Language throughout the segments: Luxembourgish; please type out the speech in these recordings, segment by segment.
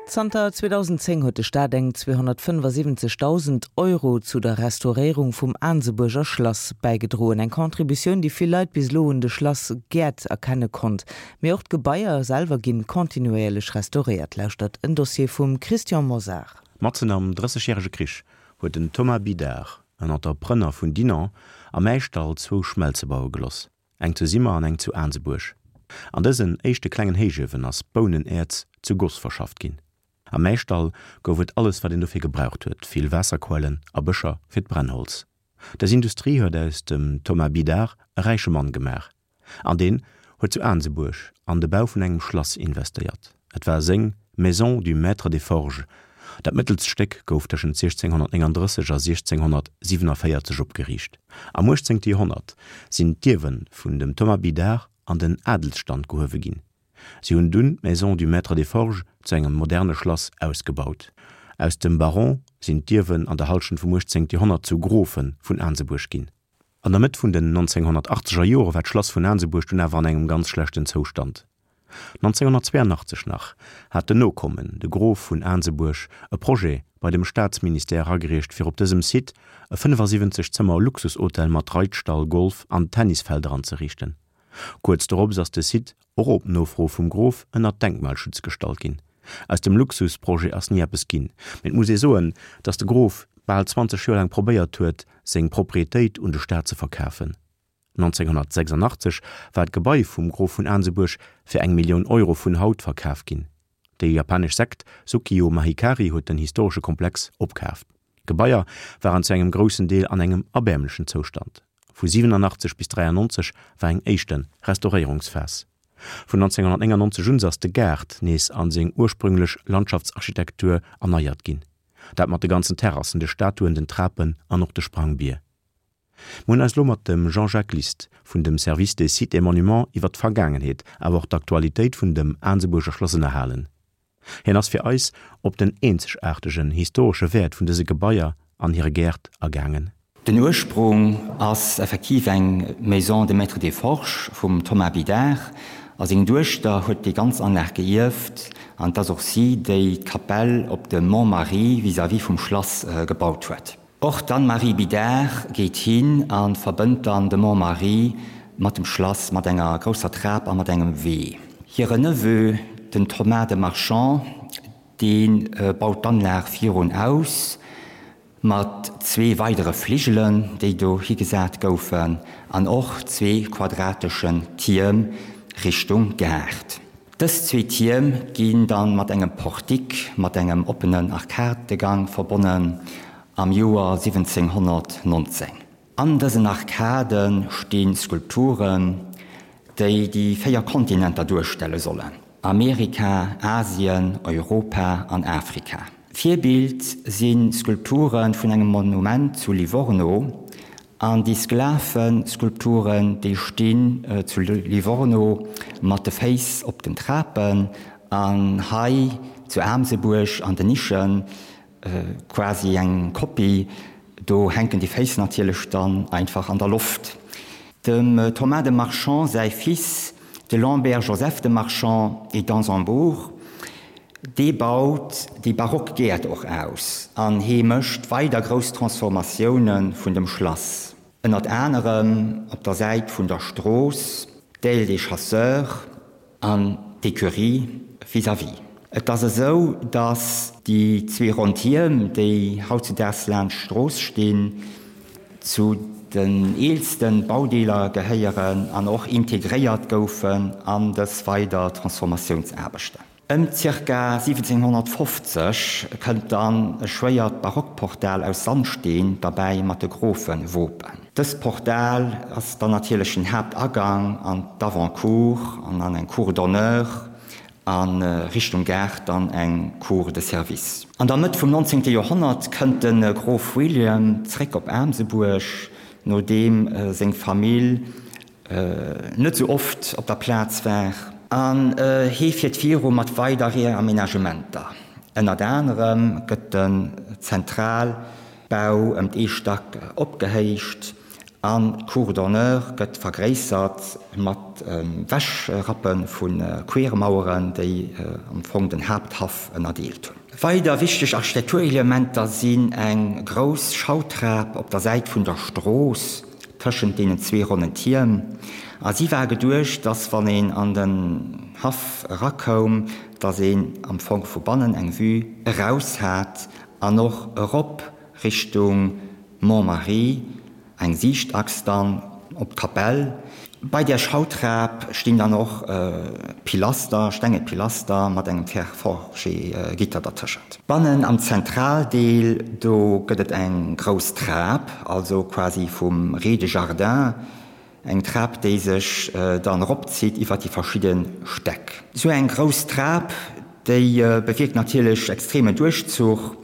Zanter 2010 huet de Staat eng 275.000 Euro zu der Restauréierung vum Aansebuerger Schlass bäigedroen. Eng Contributioun, déi vill Leit bis elo un de Schlass Gäert erkenne konnt. Mee och d'Gebaier selwer ginn kontinuéierlech restauréiert. Lauschtert en Dossier vum Christian Mosar. Matzen am Drëssegjärege Krich huet den Thomas Bidard, en Entrepreneur vun Dinant, am Äischdall zwou Schmelze baue geloss. Eng zu Simmer an eng zu Aansebuerg. An dësen éischte klengen Héichuewen ass Bounenäerz zu Goss verschafft ginn. Am Äischdall gouf et alles wat een dofir gebraucht huet, vill Waasserquellen a Bëscher fir d'Brennholz. Dës Industrie huet aus dem Thomas Bidard e räiche Mann gemaach an deen huet zu Aansebuerg an de Bau vun engem Schlass investéiert. Et war seng Maison du Maître des Forges. Dat mëttelst Stéck gouf tëschent 1639 a 1647 opgeriicht. Am 18. Joerhonnert sinn d'Ierwe vun dem Thomas Bidard an den Adelsstand gehuewe ginn. Si hunn dunn d'Maison du Maître des Forges zu engem moderne Schlass ausgebaut. Aus dem Baron sinn d'Ierwen an der Hallschent vum 18. Joerhonnert zu Grofe vun Aansebuerg ginn. An der Mëtt vun den 1980er Jore war d'Schlass vun Aansebuerg dunn awer an engem ganz schlechten Zoustand. 1982 nach hat den Nokommen, de Grof vun Aansebuerg, e Projet bei dem Staatsministère eragereecht fir op dësem Site e 75 Zëmmer Luxushotel mat Reitstall, Golf an Tennisfelder anzeriichten. Kuerz dorops ass de Site, och op Nofro vum Grof, ënner Denkmalschutz gestallt ginn. Aus dem Luxusprojet ass ni eppes ginn, mee et muss ee soen, datt de Grof bal 20 Joer laang probéiert huet, seng Proprietéit un de Staat ze verkafen. 1986 war d'Gebai vum Grof vun Aansebuerg fir eng Millioun Euro vun haut verkaf ginn. Déi japanesch Sekt Sukyo Mahikari huet den historesche Komplex opkaaft. D'Gebaier waren zu engem groussen Deel an engem erbäermlechen Zoustand. Vu 87 bis 93 war eng éischte Restauréierungsphas. Vun 1999 un ass de Gaart nees an seng ursprünglech Landschaftsarchitektur erneiert ginn. Dat mat de ganzen Terrassen, de Statuen, den Trapen an och de Sprangbier. Mir hunn eis lo mat dem Jean-Jacques List vun dem Service des Sites et Monuments iwwer d'Vergaangenheet, awer och d'Aktualitéit vun dem Aansebuerger Schlass ënnerhalen. Hien ass fir eis op den eenzegaartegen historesche Wäert vun dëse Gebaier an hire Gäert agaangen. Den Ursprung ass effektiv eng Maison de Maître des Forges vum Thomas Bidard a seng Duechter huet déi ganz Anlag geierft an et ass och si, déi d'Kapell op dem Mont Marie vis-à-vis vum Schlass gebaut huet. Och d'Anne-Marie Bidard geet hin a verbënnt dann de Mont Marie mat dem Schlass mat enger grousser Trap a mat engem Wee. Hire Neveu, den Thomas de Marchand, dee baut d'Anlag virun aus mat zwee weidere Fligelen, déi do higesat goufen, an och zwee quadrateschen Tierm Richtung Gaart. Dës zwee Tierm ginn dann mat engem Portique mat engem oppenen Arkadegang verbonnen am Joer 1719. An dësen Arkade sti Skulpturen, déi déi véier Kontinenter duerstelle sollen, Amerika, Asien, Europa an Afrika. Virbild si Skulpture vun engem Monument zu Livorno An déi Sklaveskulpturen, déi stinn zu Livorno mat de Féiss op den Trapen an hei zu Aamsebuerg an den Nischen, quasi eng Kopie, do hänken déi Féiss natierlech dann einfach an der Loft. Dem Thomas de Marchand säi Fils, de Lambert Joseph de Marchand et d'Ansembourg, Dee baut déi barock Gäert och aus an hee mécht weider grouss Transformatioune vun dem Schlass, ënnert anerem op der Säit vun der Strooss, d'Aile des Chasseurs an d'Ecurie vis-à-vis. Et ass esou, datt déi zwee ronn Tierm, déi hautzudaags laanscht d'Strooss stinn, zu den eelste Baudeeler gehéieren an och integréiert goufen an dës weider Transformatiounsaarbechten. Ëm ca. 1750 kënnt dann e schwéiert Barockportal aus Sandsteen derbäi mat de Grofewopen. Dëst Portal ass dann natierlech den Haaptagang an d'Avant-cour an an eng Cour d'honneur a Richtung Gaart dann eng Cour de service. An der Mëtt vum 19. Joerhonnert kënnt de Grof William zréck op Aamsebuerg, nodeem seng Famill net sou oft op der Plaz war. An hee fiert viru mat weider Reamenagementer. Ënnert anerem gëtt den Zentralbau ëm ee Stack opgehéicht. An d'Cour d'honneur gëtt vergréissert mat Wäschrappe vu Quermaueren, déi am Fong den Haapthaff ënnerdeelt hunn. Weider wichteg Architekturelementer sinn eng grouss Schautrap op der Säit vun der Strooss tëschent deenen zwee ronnen Tierm. A si war geduecht, dass wann een an den Haff erakoum, dass een am Fong vu bannen eng Vue eraus hat an och erop Richtung Mont-Marie, eng Siichtachs dann op d'Kapell. Bei där Schautrap stinn dann och Pilaster, stenge Pilaster mat engem Fer-forgé-Gitter dertëschent. Bannen am Zentraldeel, do gëtt et eng grouss Trap, also quasi vum Rez-de-jardin, eng Trap, déi sech dann eropzitt iwwer déi verschidde Stäck. Esou eng grouss Trap, déi bewierkt natierlech extremen Duerchzuch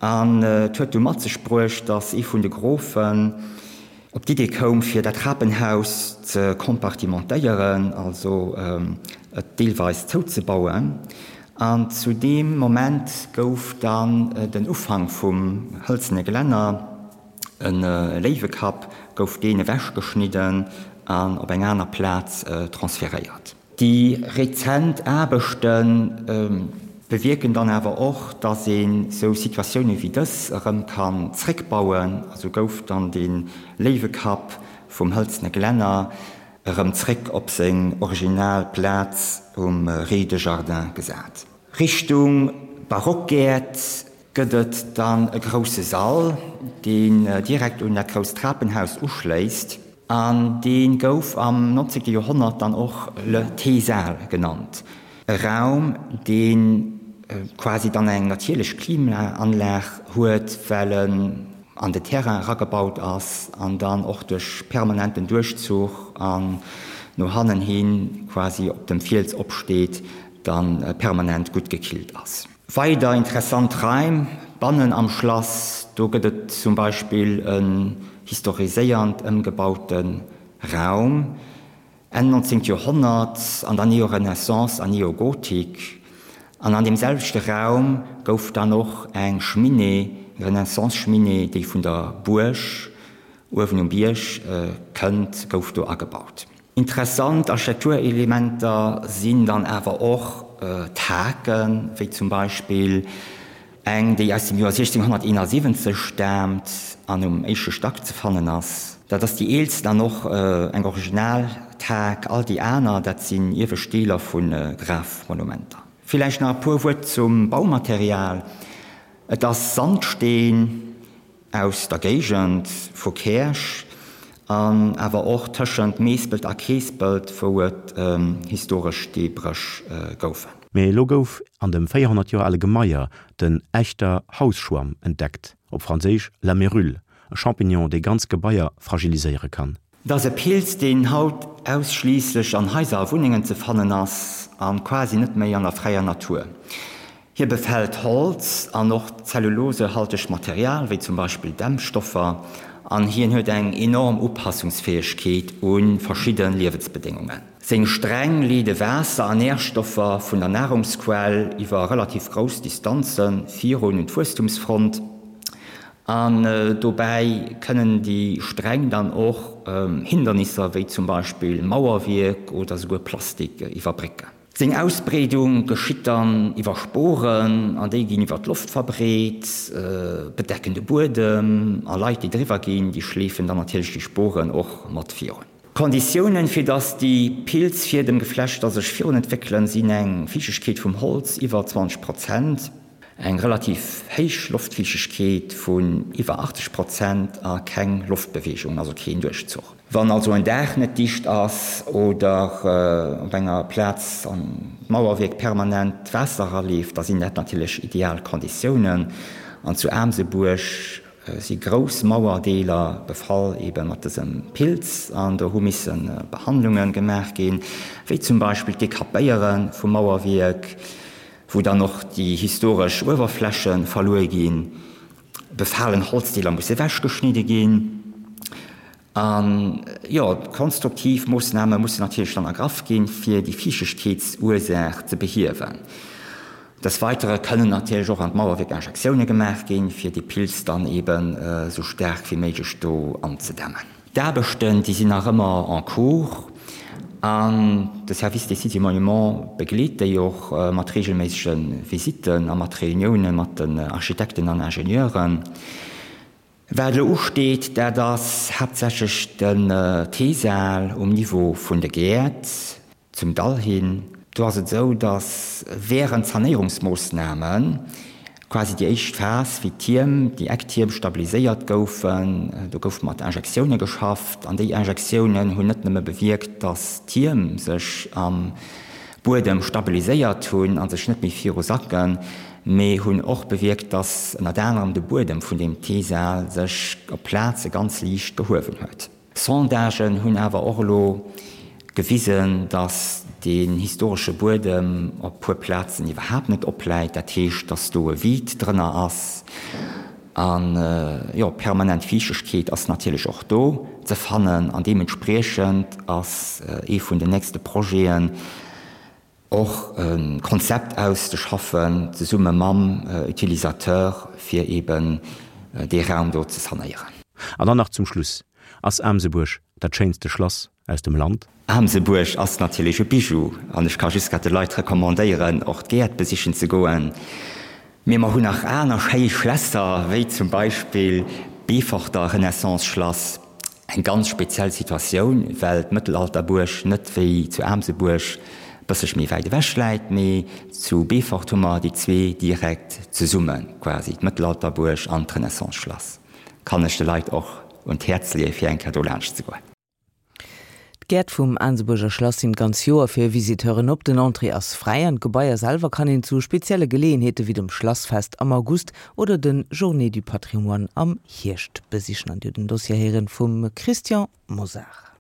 An et huet du mat sech bruecht, datt ee vun de Grofen op d'Idee koum, fir dat Trapenhaus ze kompartimentéieren, also et deelweis zouzebauen. An zu deem Moment gouf dann den Ufank vum hëlzene Gelänner, e Léiwekapp, gouf deen ewechgeschnidden an op eng aner Plaz transferéiert. Déi rezent Aarbechte bewierken dann awer och, datt een esou Situatioune wéi dës erëm kann zréckbauen. Esou gouf dann de Léiwekapp vum hëlzene Glänner erëm zréck op seng original Plaz um Rez-de-jardin gesat. Richtung Barockgäert gëtt et dann e grousse Sall, deen direkt un dat grousst Trapenhaus uschléisst an dee gouf am 19. Joerhonnert dann och le Teesaal genannt. E Raum, dee quasi dann eng natierlech Klimaanlag huet, well en an de Terrain eragebaut ass an dann och duerch permanenten Duerchzuch an no hannen hi quasi op dem Fiels opsteet, dann permanent gutt gekillt ass. Weider interessant Raim bannen am Schlass, do gëtt et zum Beispill en historiséiernd ëmgebaute Raum, Enn 19. Joerhonnert, an der Neorenaissance an Neogotik. An an deem selwechte Raum gouf dann och eng Cheminée, Renaissance-Cheminée, déi vun der Buerg uewen um Bierg kënnt, gouf do agebaut. Interessant Architekturelementer sinn dann awer och d'Haken, wéi zum Beispill eng, déi aus dem Joer 1671 staamt an um éischte Stack ze fannen ass. Dat ass déi eelsten an och eng original Thak. All déi aner, dat sinn iewescht Deeler vu Grafmonumenter. Villäicht nach e puer Wuert zum Baumaterial, Et ass Sandsteen. Aus der Géigend vu Käerch an awer och tëschent Meespelt a Keespelt, wou et historesch Steebréch goufen. Mee elo gouf an dem 400 Joer ale Gemaier den Echter Hausschwamm entdeckt, op Franséisch la mérule, e Champignon, dee ganz Gebaier fragiliséiere kann. Et ass e Pilz, deen haut ausschliisslech an Haiser a Wunnengen ze fannen ass a quasi net méi an der fräier Natur. Hie befält Holz an och zellulosehaltegt Material, wéi zum Beispill Dämmstoffer, an hien huet eng enorm Upassungsfäegkeet u verschidde Liewensbedéngungen. Seng Sträng leede Waasser an Närstoffer vun der Narungsquell iwwer relativ grouss Distanze virun un d'Wuesstumsfront. An dobäi kënnen déi Sträng dann och Hindernisser, wéi zum Beispill Mauerwierk oder souguer Plastik iwwerbrécken. Seng Ausbreedung geschitt dann iwwer Sporen, an déi ginn iwwer d'Loft verbreet, bedecken de Buedem, a Leit, déi driwwer ginn, déi schleefen dann natierlech déi Sporen och mat virun. D'Konditiounen, fir dass déi Pilzfiedemgeflechter sech virun entwéckelen, sinn eng Fiichtegkeet vum Holz iwwer 20 Prozent, eng relativ héich Loftfiichtegkeet vun iwwer 80 Prozent a keng Loftbeweegung, also keen Duerchzuch. Wann also en Daach net dicht ass oder op enger Plaz an d'Mauerwierk permanent Waasser eraleeft, da sinn dat natierlech ideal Konditiounen. An zu Aamsebuerg si grouss Mauerdeeler befall ebe mat dësem Pilz an do hu misse Behandlunge gemaach ginn, wéi zum Beispill d'Dekapéiere vum Mauerwierk, wou dann och déi historesch Uewerfläche verluer ginn, befalen Holzdeeler musse ewechgeschnidde ginn an, jo, konstruktiv Moossname mussen natierlech dann ergraff ginn, fir déi Fiichtegkeetsursaach ze behiewen. Des Weitere kënnen natierlech och an d'Mauerwierk Injektioune gemaach ginn, fir dee Pilz dann eben esou staark wéi méiglech do anzedämmen. D'Aarbechten, déi sinn nach ëmmer en cours an de Service des Sites et Monuments begleet déi och mat reegelméissege Visitten a mat Reunioune mat den Architekten an Ingenieuren. Wat elo usteet, dat ass haaptsächlech den T-Saal um Niveau vun de Gäert zum Dall hin. Do ass et esou, datt wärend Sanéierungsmoossname quasi déi éischt Phas, wéi d'Tierm, déi Ecktierm stabiliséiert goufen, do gouf mat Injektioune geschafft an déi Injektiounen hunn net nëmme bewierkt, datt d'Tierm sech am Buedem stabiliséiert hunn a sech net méi viru sacken, mee hunn och bewierkt, datt ënnert anerem de Buedem vun deem T-Saal sech op Plaze ganz liicht gehuewen huet. Sondagen hunn awer och elo gewisen, datt deen historesche Buedem op puer Plazen iwwerhaapt net opläit. Dat heescht, datt do e Vide drënner ass. An jo, permanent Fiichtegkeet ass natierlech och do ze fannen. An deementspriechend ass ee vun den nächste Projeten, och e Konzept auszeschaffen, zesumme mam Utilisateur, fir eben dee Raum do ze sanéieren. An dann nach zum Schluss, Ass Aamsebuerg dat schéinste Schlass aus dem Land? Aamsebuerg ass natierlech e Bijou an ech ka just grad de Leit recommandéieren, och d'Gäert besichen ze goen. Mee mer hunn nach aner schéi Schlässer, wéi zum Beispill d'Beeforter Renaissance-Schlass. Eng ganz speziell Situatioun, well d'Mëttelalterbuerg net wéi zu Aamsebuerg e bësselche méi wäit ewech läit, mee zu Beefort hu mer déi zwee direkt zesumme quasi, d'Mëttelalterbuerg an d'Renaissance-Schlass. Kann ech de Leit och un d'Häerz leeë fir eng Kéier do laanscht ze goen. D'Gäert vum Aansebuerger Schlass sinn d'ganz Joer fir Visiteuren op. Den Entrée ass fräi an d'Gebaier selwer kann een zu spezielle Geleeënheete wéi dem Schlassfest am August oder den Journées du Patrimoine am Hierscht besichen. An Dir hutt den Dossier héieren vum Christian Mosar.